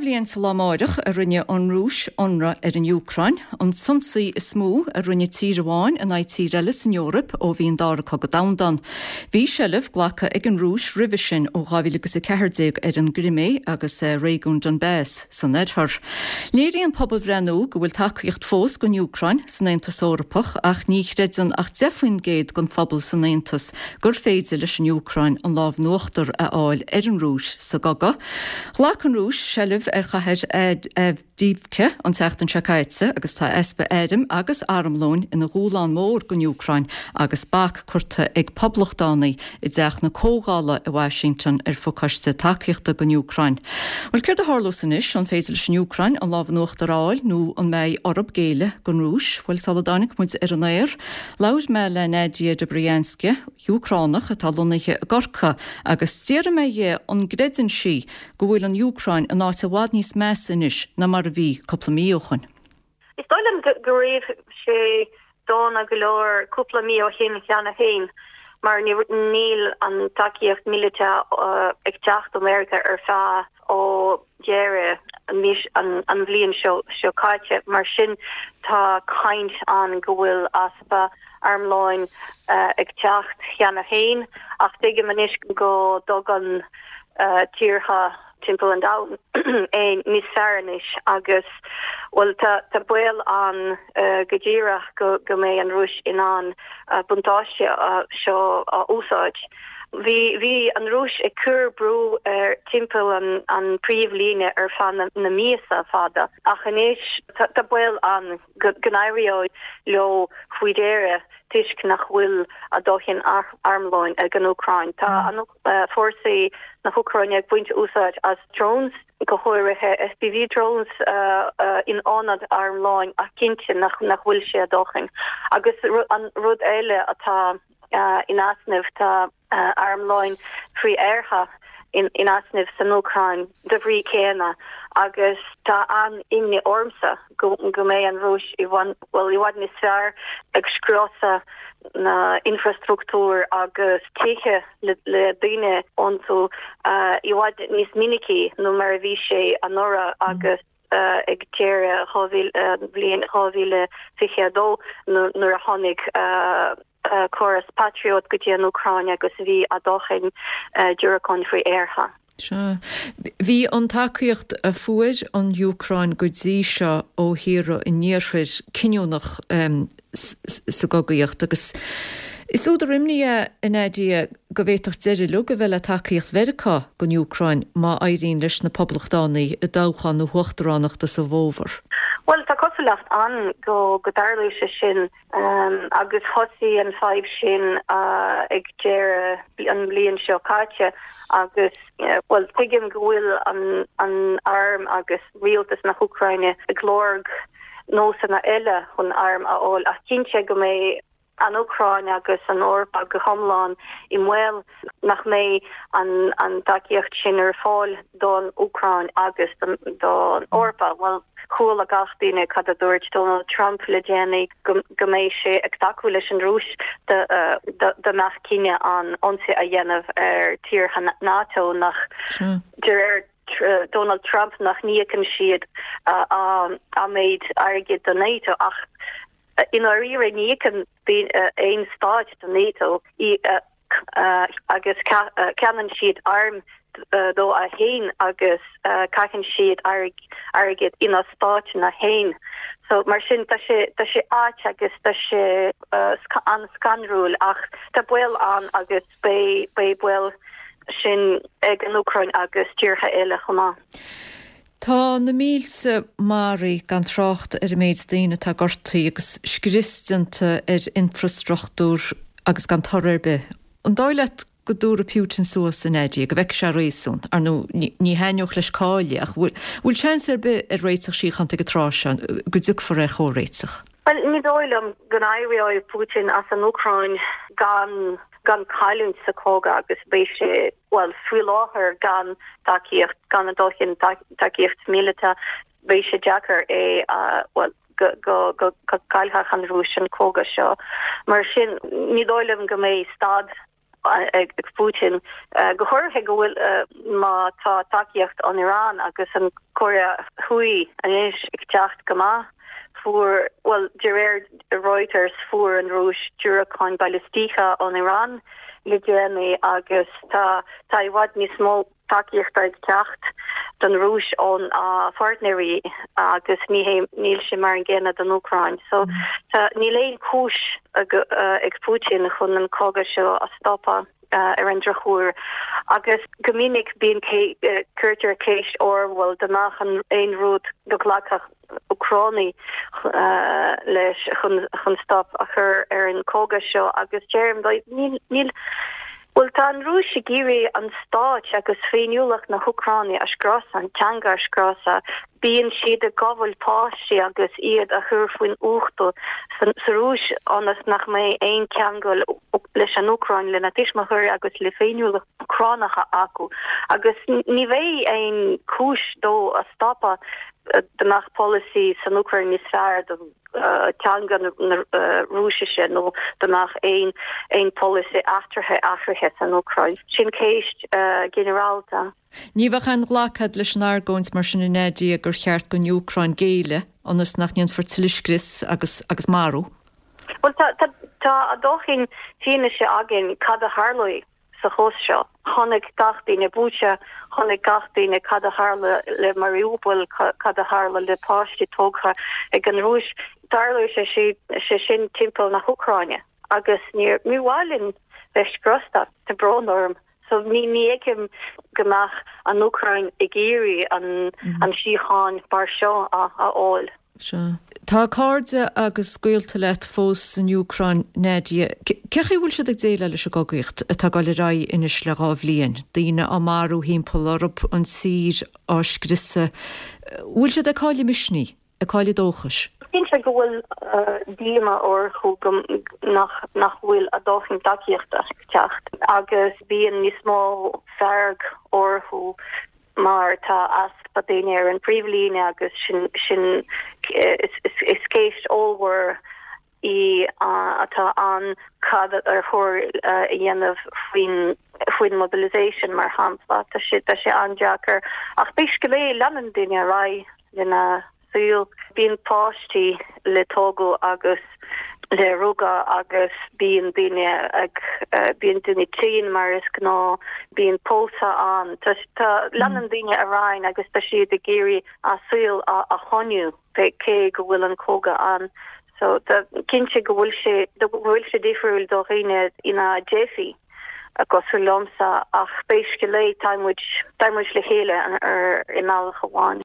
bliain sa lá amáireach a rinne an Rúis ionradh ar an Úcráin, an t-ionsaí is mó a rinne tír amháin in aghaidh tír eile san Eoraip ó bhí an Dara Cogadh Domhanda ann. Bhí seilbh glactha ag an Rúis roimhe sin ó 2014 ar an gCrimé agus réigiún Donbas san oirthear. Léiríonn pobalbhreith nua go bhfuil tacaíocht fós don Úcráin san Aontas Eorpach ach ní chreideann ach 10% den phobal san Aontas gur féidir leis an Úcráin an lámh in uachtar a fháil ar an Rúis sa gcogadh. Ghlac an Rúis seilbh ar chathair Avdiivka an tseachtain seo caite agus tá easpa airm agus armlóin ina dhúshlán mór don Úcráin agus bac curtha ag poblachtánaigh i dTeach na Comhdhála i Washington ar phacáiste tacaíochta don Úcráin. Bhuel, céard a tharlós anois? An féidir leis an Úcráin an lámh in uachtar a fháil nó an mbeidh orthu géilleadh don Rúis? Bhuel, sula dtáinig muid ar an aer, Labhair mé le Nadia Dobrianska, Úcránach atá lonnaithe i gCorcaigh, agus d'fhiafraigh mé dhi an gcreideann sí go bhfuil an Úcráin in áit i bhfad níos measa anois ná mar a bhí cúpla mí ó shoin. Is dóigh liom go raibh sé dona go leor cúpla mí ó shin cheana féin mar níl an tacaíocht míleata ag teacht ó Meiriceá ar feadh ó dheireadh an bhliain seo caite. Mar sin tá caint ann go bhfuil easpa armlóin ag teacht cheana féin ach tuigim anois go dtugann tíortha timpeall an domhain é níos fearr anois agus, bhuel, tá baol ann go díreach go mbeidh an Rúis in ann buntáiste seo a úsáid. Bhí bhí an Rúis ag cur brú ar timpeall an an príomhlíne ar feadh na na míosa fada ach anois tá baol ann go go n-éireoidh leo faoi dheireadh toisc nach bhfuil a dóthain armlóin ag an Úcráin. Tá an fórsaí na hÚcráine ag baint úsáid as drones, go háirithe FPV drones in ionad armlóin ach cinnte nach nach bhfuil sé a dóthain. Agus an rud eile atá in easnamh. Tá armlóin frith-aertha in easnamh san Úcráin de bhrí céanna agus tá an-imní ormsa go mbeidh an Rúis i bhfad, bhuel, i bhfad níos fearr ag scriosadh na infrastruchtúr agus tithe le daoine iontu i bhfad níos minicí nó mar a bhí sé anuraidh agus ag deireadh bhliain 2022 nuair a tháinig córas Patriot go dtí an Úcráin agus bhí a dóthain diúracáin frith-aertha. Sea. Bhí an tacaíocht a fuair an Úcráin go dtí seo ó thíortha an Iarthair cinniúnach sa gcogaíocht agus is údar imní é, a Nadia, go bhféadfadh deireadh uilig a bheith le tacaíocht Mheiriceá don Úcráin má éiríonn leis na Poblachtánaigh i dtoghchán na huachtaránachta sa bhfómhar. Bhuel, tá cosúlacht ann go dtarlóidh sé sin agus thosaigh an fadhb sin ag deireadh an bhliain seo caite agus, bhuel, tuigim go bhfuil an arm agus rialtas na hÚcráine ag lorg nósanna eile chun airm a fháil ach cinnte go mbeidh an Úcráin agus an Eoraip go hiomlán i mbaol nach mbeidh an tacaíocht sin ar fáil don Úcráin agus don Eoraip. Bhuel, chuala gach duine cad a dúirt Donald Trump le déanaí, go mbeidh sé ag tacú leis an Rúis dá mbeadh cinneadh ann ionsaí a dhéanamh ar tíortha NATO nach, de réir Donald Trump, nach n-íocann siad an méid airgid do NATO ach I ndáiríre, ní íocann aon stáit do NATO agus ceannaíonn siad airm dóibh féin agus caitheann siad airgead ina stáiteanna féin. So mar sin tá sé tá sé ait agus tá sé an-scanrúil ach tá baol ann agus beidh beidh baol sin ag an Úcráin agus tíortha eile chomh maith. Tá na mílte maraithe, gan trácht ar an méid daoine atá gortaithe agus scrios déanta ar infreastruchtúr agus gan toradh ar bith. An dóigh leat go dtabharfaidh Putin suas, a Nadia, go bhfeicfidh sé réasún? Ar ndóigh, ní thaitneodh leis cailleadh, ach bhfuil seans ar bith ar réiteach síochánta ag an tráth seo, go dtiocfar ar chomhréiteach? Bhuel, ní dóigh liom go n-éireoidh Putin as an Úcráin gan gan cailliúint sa chogadh agus beidh sé, bhuel, faoi láthair gan tacaíocht, gan a dóthain tacaíocht míleata, beidh sé deacair é a, bhuel, go, go, go, go gcaillfeadh an Rúis an cogadh seo. Mar sin, ní dóigh liom go mbeidh stad. ag Putin, go háirithe go bhfuil má tá tacaíocht ón Iran agus an Cóiré Thuaidh anois ag teacht go maith. Fuair, bhuel, de réir Reuters, fuair an Rúis diúracáin balaistíocha ón Iran le déanaí agus tá tá i bhfad níos mó tacaíochta ag teacht don Rúis óna pháirtnéirí agus ní hé, níl sé mar an gcéanna don Úcráin. So tá, níl aon chúis ag Putin chun an cogadh seo a stopadh ar an drochuair. Agus go minic bíonn, cuirtear ceist orm, bhuel, dá mbeadh aon rud go nglacfadh Úcránaigh leis chun stop a chur ar an cogadh seo agus deirim níl, níl, bhuel tá an Rúis ag iarraidh an stáit agus féiniúlacht na hÚcráine a scriosadh, an teanga a scriosadh. Bíonn siad ag gabháil páistí agus iad a chur faoin uchtú sa Rúis ionas nach mbeidh aon cheangal leis an Úcráin, lena tuismitheoirí agus le féiniúlacht Úcránacha acu agus ní bheidh aon chúis dó a stopadh. Dá mbeadh polasaí san Úcráin níos fearr do teanga na Rúisise nó dá mbeadh aon aon polasaí eachtraithe athraithe san Úcráin. Sin ceist ginearálta. Ní bheadh aon ghlacadh leis an argóint mar sin a Nadia gur cheart don Úcráin géilleadh ionas nach ndéanfar tuilleadh scrios agus agus marú. Bhuel tá tá tá a dóthain fianaise againn cad a tharlóidh. sa chás seo. Chonaic gach duine Bucha, chonaic gach duine cad a tharla le Mariupol, cad a tharla le páistí tógtha ag an Rúis. Tarlóidh sé sé sin timpeall na hÚcráine agus ní mhaith linn bheith scriosta, tá brón orm. So ní ní fheicim go mbeadh an Úcráin ag iarraidh an an síocháin mar seo a fháil. Sea. Tá cairde agus gaolta leat fós san Úcráin, Nadia. Cé chaoi a bhfuil siad ag déileáil leis an gcogaíocht atá ag dul ar aghaidh anois le 2 bhliain? Daoine á marú thimpeall orthu, an tír á scriosadh. Bhfuil siad ag cailleadh misnigh? Ag cailleadh dóchais? Cinnte go bhfuil díomá orthu go nach nach bhfuil a dóthain tacaíochta ag teacht agus bíonn níos mó fearg orthu mar tá easpa daoine ar an bpríomhlíne agus sin sin is ceist ollmhór í atá ann cad ar chóir a dhéanamh faoin faoin mobilisation mar shampla. Tá sé tá sé an-deacair ach pé scéal é leanann daoine ar aghaidh lena saol. Bíonn páistí le tógadh agus le rugadh agus bíonn daoine ag, bíonn daoine tinn mar is gnáth, bíonn pósadh ann. Tá, tá, leanann daoine ar aghaidh agus tá siad ag iarraidh a saol a, a choinniú cé go bhfuil an cogadh ann. So tá, cinnte go bhfuil sé, go bhfuil sé difriúil do dhaoine ina dteifigh cosúil liomsa ach pé scéal é tá muid, tá muid le chéile ar, i mbealach amháin.